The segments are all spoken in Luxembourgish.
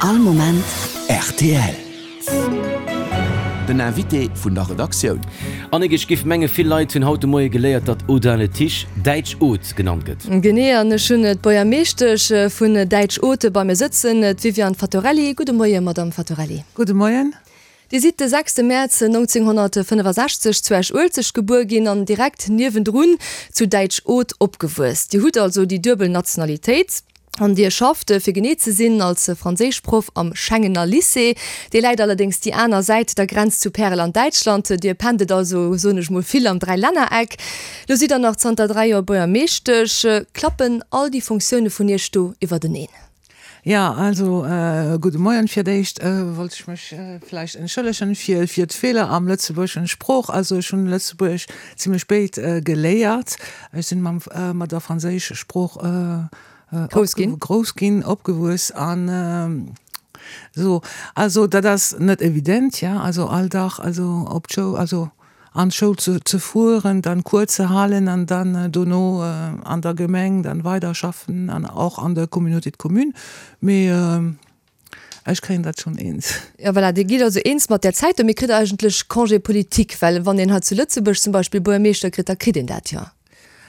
All Moment rtl. Den Invité vun der Redaktioun. Annick, ech giff menge vill Leit hunn haut de Moie geléiert, datt Audun-le-Tiche Däitsch-Oth genannt gëtt. Genee, an ech hunn d'Buergermeeschtesch vun Däitsch-Oth bei mir sëtzen, d'Viviane Fattorelli. Gudde Moie, Madamm Fattorelli. Gudde Moien. Dir sidd de sechste Mäerz 1965 zu Esch-Uelzecht gebuer ginn an direkt niewendrun zu Däitsch-Oth opgewuess. Dir hutt also déi duebel Nationalitéit an Dir schafft, fir genee ze sinn, als Franséischproff am Schengener Lycée. Dee läit allerdéngs déi aner Säit der Grenz zu Pärel an Däitschland. Dir pendelt also, soen ech mol, vill am Dräilännereck. Lo sidd Der nach zanter 3 Joer Buergermeeschtesch. Klappen all déi Funktioune vun Iech do iwwerteneen? Jo, also gudde Moien. Fir d'éischt wollt ech mech vläicht entschëllegen fir fir d'Feeler am lëtzebuergeschen Sprooch. Also ech hunn Lëtzebuergesch zimlech spéit geléiert. Ech sinn mam mat der franséische Sprooch Grouss ginn. Grouss ginn, opgewuess an esou. Also dat ass net evident, ja, also all Dag also op d'Schoul, also an d'Schoul ze fueren, dann Cours ze halen an dann dono an der Gemeng dann weider schaffen an och an der Communauté de communes. Mee ech kréien dat schonn eens. Jo voilà, Dir gitt also eens mat där Zäit do. Mee kritt Der eigentlech Congé politique? Well wann een hei zu Lëtzebuerg zum Beispill Buergermeeschter kritt, da kritt een dat jo.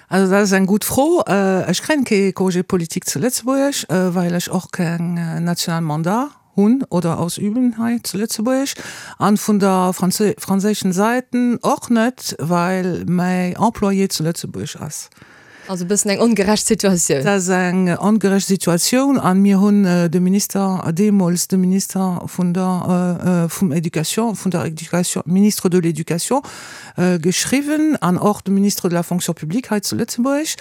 Also dat ass eng gutt Fro. Ech kréien kee Congé politique zu Lëtzebuerg, well ech och keng national Mandat hunn oder ausüben hei zu Lëtzebuerg an vun der franséischen Säiten och net, well mäi Employé zu Lëtzebuerg ass. Also e bëssen eng ongerecht Situatioun. Dat ass eng ongerecht Situatioun an mir hunn de Minister, deemools de Minister vun der vum Education, vun der Education, Ministre de l'Éducation geschriwwen an och de Ministre de la Fonction publique hei zu Lëtzebuerg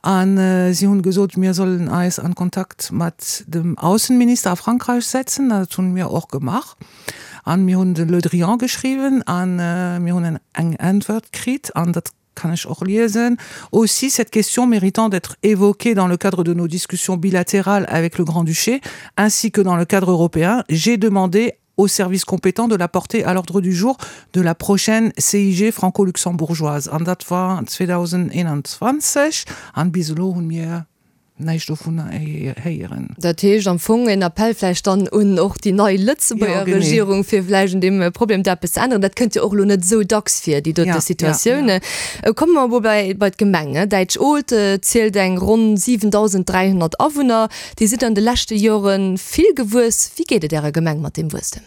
an si hunn gesot, mir sollen eis an Kontakt mat dem Aussenminister a Frankreich setzen. Dat hunn mir och gemaach an mir hunn de Le Drian geschriwwen an mir hunn eng Äntwert kritt an dat kann ech och liesen, Aussi cette question méritant d'être évoquée dans le cadre de nos discussions bilatérales avec le Grand-Duché ainsi que dans le cadre européen, j'ai demandé aux services compétents de la porter à l'ordre du jour de la prochaine CIG franco-luxembourgeoise. An dat war 2021, an bis elo hunn mir näischt dovunner héieren. Dat heescht am Fong en Appell vläicht dann un och déi nei Lëtzebuerger Regierung, fir vläicht un deem Problem do eppes ze änneren. Dat kënnt jo och elo net esou dacks vir, déi dote Situatioun. Komme mer emol bei bei d'Gemeng. Däitsch-Olt zielt eng ronn 7.300 Awunner. Dir sidd an de leschte Jore vill gewuess. Wéi geet et Ärer Gemeng mat deem Wuesstem?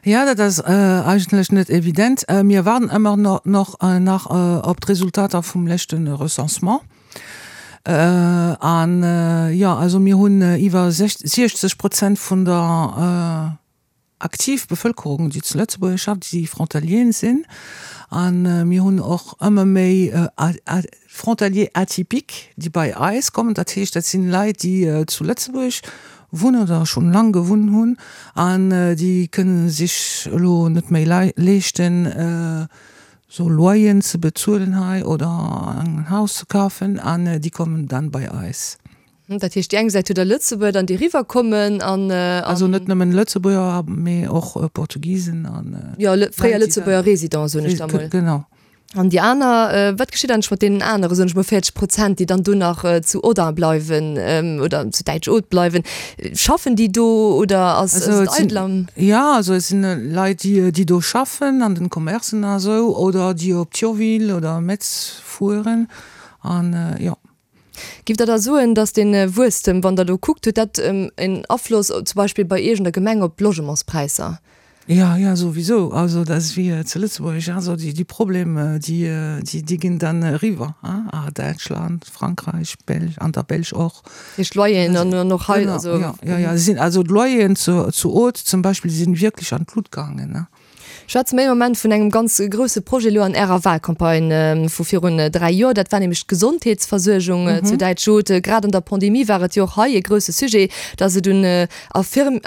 Jo, dat ass eigentlech net evident. Mir waarden ëmmer nach op d'Resultater vum leschte Recensement. An jo, also mir hunn iwwer 60 Prozent vun der aktiv Bevëlkerung, déi zu Lëtzebuerg schafft, déi Frontalieren sinn. A mir hunn och ëmmer méi Frontaliers atypiques, déi bei eis kommen. Dat heescht, dat sinn Leit, déi zu Lëtzebuerg wunnen oder schonn laang gewunn hunn an déi kënne sech elo net méi leeschten, sou Loyeren ze bezuelen hei oder en Haus ze kafen an déi kommen dann bei eis. Dat heescht, déi eng Säit hutt Der Lëtzebuerger dann, déi eriwwerkommen an. Also net nëmmen Lëtzebuerger, mee och Portugisen an. Jo, fréier Lëtzebuerger Résidenten, soen ech da mol. Genau. An déi aner, wat geschitt eigentlech mat deenen anere, soen ech mol, 40 Prozent, déi dann do nach zu Audun bleiwen oder zu Däitsch-Oth bleiwen? Schaffen déi do oder ass et eidel am. Jo, also et sinn Leit, déi do schaffen an den Commercen a sou oder déi op Thionville oder Metz fueren an jo. Giff Der da soen, datt dee Wuesstem, wann Der elo kuckt, huet dat en Afloss zum Beispill bei Iech an der Gemeng op d'Logementspräisser? Jo, jo, souwisou. Also dat ass wéi zu Lëtzebuerg, also déi Problemer, déi, déi ginn dann eriwwer a Däitschland, Frankräich, Belsch, an der Belsch och. Dat heescht d'Loyeren an och hei, also. Jo, jo, jo, sinn, also d'Loyeren zu zu Oth zum Beispill sinn wierklech an d'Lut gaangen. Schwätze mer ee Moment vun engem ganz grousse Projet elo an Ärer Wahlcampagne vu virun 3 Joer. Dat war nämlech d'Gesondheetsversuergung zu Däitsch-Oth. Grad an der Pandemie war et jo och hei e grousse Sujet, dass et un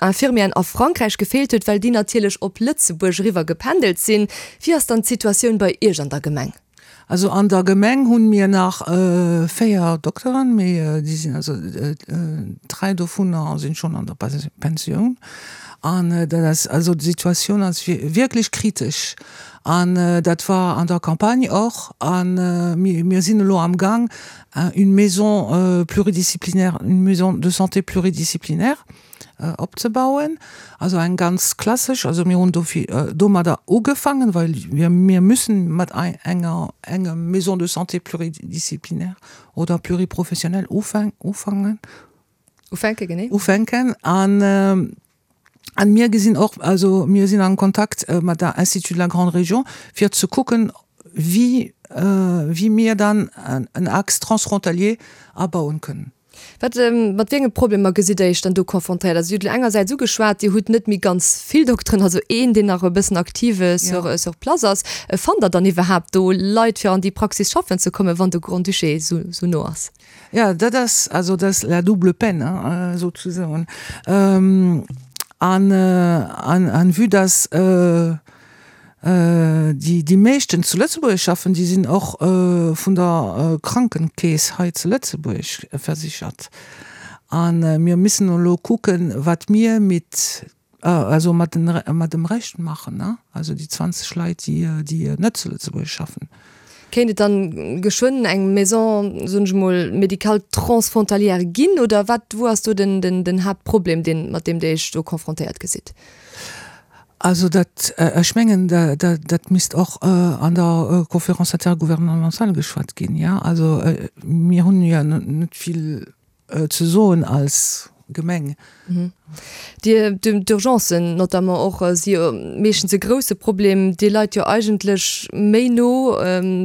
Infirmieren a Frankräich gefeelt huet, well déi natierlech op Lëtzebuerg eriwwer gependelt sinn. Wéi ass dann d'Situatioun bei Iech an der Gemeng? Also an der Gemeng hunn mir nach 4 Dokteren, mee déi sinn also 3 dovunner sinn schonn an der Pensioun. An dat ass also d'Situatioun ass wierklech kritesch an dat war an der Campagne och. An mir sinn elo am Gang une maison pluridisciplinaire, une maison de santé pluridisciplinaire. opzebauen. Also eng ganz klassesch, also mir hunn dofir domadder ugefangen, well wir mir müssen mat enger engem Maison de santé pluridisciplinaire oder pluriprofessionnelle ufangen. Ufänken, genee. Ufänken an an mir gesinn och, also mir sinn am Kontakt mat der Institut de la Grande Région fir ze kucken, wéi wéi mir dann en Axe transfrontalier abauen kënnen. Wat, mat wéi enge Problemer gesitt Der Iech dann do confrontéiert? Also Dir hutt elo engersäits ugeschwat, Dir hutt net méi ganz vill Dokteren, also een, deen nach e bëssen aktiv sur sur place ass. Fannt Der dann iwwerhaapt do Leit, fir an déi Praxis schaffen ze kommen, wann de Grand-Duché esou esou no ass? Ja, dat ass also dat ass la double peine, hein, souzesoen. An, an, an vue dass déi, déi meeschten zu Lëtzebuerg schaffen, déi sinn och vun der Krankenkeess hei zu Lëtzebuerg versichert. A mir müssen elo kucken, wat mir mit Also mat den, mat dem Rescht maachen, ne? Also déi 20 Leit, déi, déi net zu Lëtzebuerg schaffen. Kéint et dann geschwënn eng Maison, soen ech emol, médicale transfrontalière ginn, oder wat, wou ass do den, den, den Haaptproblem, deen, mat deem Dir Iech do confrontéiert gesitt? Also dat, ech mengen, da, da, dat misst och an der Conférence intergouvernementale geschwat ginn, jo. Also mir hunn jo net vill ze soen als Gemeng. Dir, d'Urgencen notamment och si jo meeschtens e grousse Problem. Dir leit jo eigentlech méi no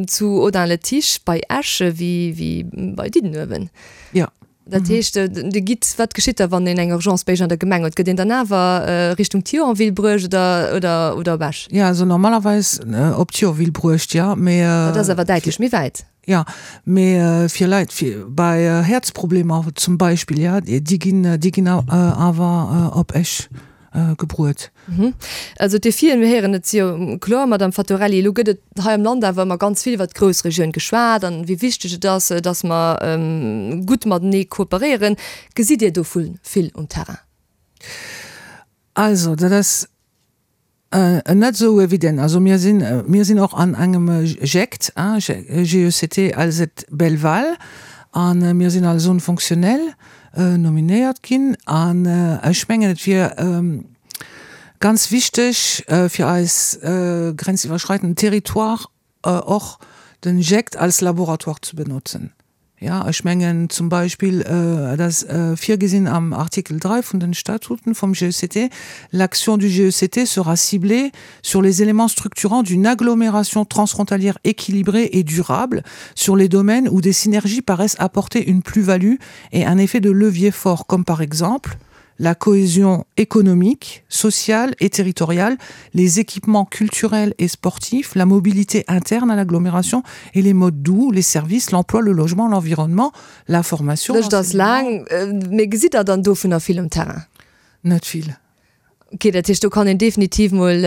zu Audun-le-Tiche bei Esch wéi bei Diddenuewen. Jo. Dat heescht, Dir gitt, wat geschitt da wann een eng Urgence bei Iech an der Gemeng huet? Gëtt een dann awer Richtung Thionville bruecht oder oder op Esch? Jo, also normalerweis op Thionville bruecht, jo, mee. Dat ass awer däitlech méi wäit. Jo, mee fir Leit fir bei Häerzproblemer zum Beispill, jo, déi ginn, déi ginn awer op Esch gebruet. Also d'Defien, mir héieren et si jo kloer, Madamm Fattorelli. Elo gëtt et hei am Land awer ëmmer ganz vill iwwert d'Groussregioun geschwat an wéi wichteg et ass, datt mer gutt matenee kooperéieren. Gesitt Dir dovu vill um Terrain? Also dat ass Net esou evident. Also mir sinn, mir sinn och an engem GECT, GECT Alzette Belval, a mir sinn als Zone fonctionnelle nominéiert ginn. An ech mengen, et wier ganz wichteg fir eis grenziwwerschreitenden Territoire och den GECT als Laboratoire ze benotzen. Jo, ech mengen zum Beispill, et ass virgesinn am Artikel 3 vun den Statuten vum GECT, L'action du GECT sera ciblée sur les éléments structurants d'une agglomération transfrontalière équilibrée et durable sur les domaines où des synergies paraissent apporter une plus-value et un effet de levier fort, comme par exemple la cohésion économique, sociale et territoriale, les équipements culturels et sportifs, la mobilité interne à l'agglomération et les modes doux, les services, l'emploi, le logement, l'environnement, la formation. D'Lëscht ass laang. Mee gesitt Der dann dovunner vill um Terrain? Net vill. Ok, dat heescht, do kann een definitiv mol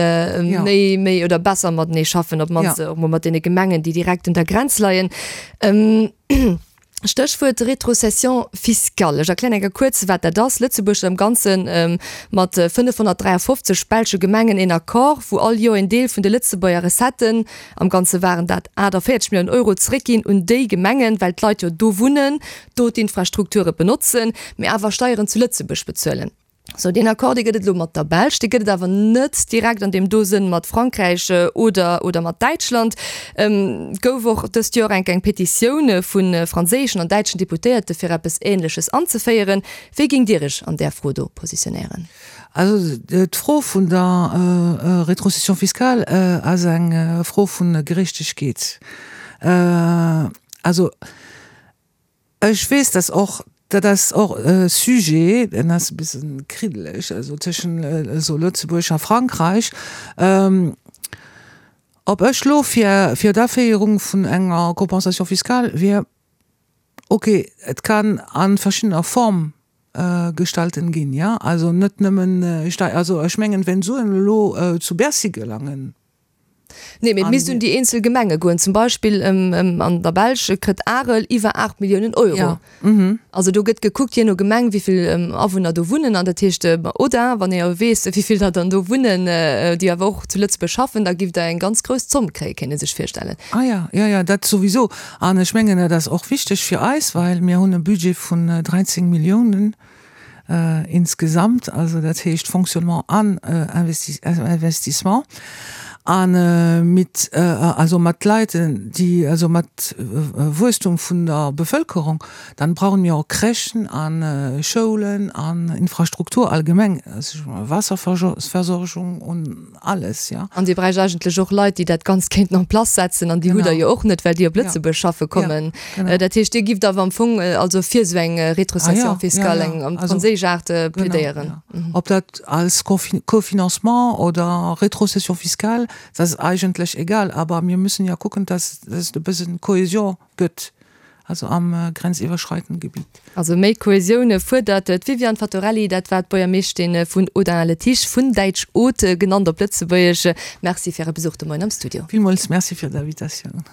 méi, méi oder besser matenee schaffen, op d'mannst och mol mat deene Gemengen, déi direkt un der Grenz leien. Stéchwuert Rétrocession fiscale. Ech erklären eng Kéier kuerz, wat dat ass. Lëtzebuerg huet am Ganze mat 553 belsche Gemengen een Accord, wou all Joer een Deel vun de Lëtzebuerger Recetten, am Ganze waren dat 48 Milliounen Euro, zeréckginn un déi Gemengen, well d'Leit jo do wunnen, do d'Infrastrukture benotzen, mee awer Steieren zu Lëtzebuerg bezuelen. Sou, deen Accord, dee gëtt et elo mat der Belsch, dee gëtt et awer net direkt an deem do Sënn mat Frankräich oder, oder mat Däitschland. Et gouf och dëst Joer enk eng Petitioun vu franséischen an däitschen Deputéierte fir eppes Ähnleches anzeféieren. Wéi géingt Dir Iech an där Fro do positionéieren? Also d'Fro vun der Rétrocession fiscale ass eng Fro vu Gerechtegkeet. Also Ech weess, dass och, dat ass och e Sujet, deen ass e bësse kriddeleg, also tëschent elo Lëtzebuerg a Frankräich, ob ech elo fir, fir d'Aféierung vun enger Compensation fiscale wier. Okay, et kann a verschiddener Form gestalten ginn, jo, also net nëmmen Stei-, also ech mengen, wenn Suen elo zu Bercy gelangen, Nee, mee et misst un déi eenzel Gemenge goen. Zum Beispill an der Belsch kritt Arel iwwer 8 Milliounen Euro. Also do gëtt gekuckt, jee no Gemeng, wéi vill Awunner do wunnen. An dat heescht, oder wann ee jo weess, wéi vill der dann do wunnen, déi awer och zu Lëtzebuerg schaffen, da giff der eng ganz grouss Zomm kréien, kéint ee sech virstellen. Ah ja, jo, jo, dat souwisou. An ech mengen, dat ass och wichteg fir eis, well mir hunn e Budget vun 13 Milliounen. Insgesamt, also dat heescht Fonctionnement an Investissement, a mit, also mat Leit, déi, also mat Wuesstum vun der Bevëlkerung, dann brauchen mir och Crèchen a Schoulen an Infrastruktur allgemeng, Waasserversorgung und alles, ja. An Dir bräicht eigentlech och Leit, déi dat Ganzt kéinten en place setzen, an déi hutt Der jo och net, well déi op Lëtzebuerg schaffe kommen. Dat heescht, Dir gifft awer am Fong also fir esou eng Rétrocession fiscale, eng am franséisch Aart, plädéieren. Ob dat als Cofinancement oder Rétrocession fiscale, dat ass eigentlech egal, aber mir müssen ja kucken, dass et e bëssen Cohésion gëtt. also am grenziwwerschreitenden Gebiet. Also méi Kohäsioun fuerdert d'Viviane Fattorelli, dat war d'Buergermeeschtin vun Audun-le-Tiche, vun Däitsch Aude genannt op Lëtzebuergesch. Merci fir Äre Besuch de Moien am Studio. Villmools Merci fir d'Invitatioun.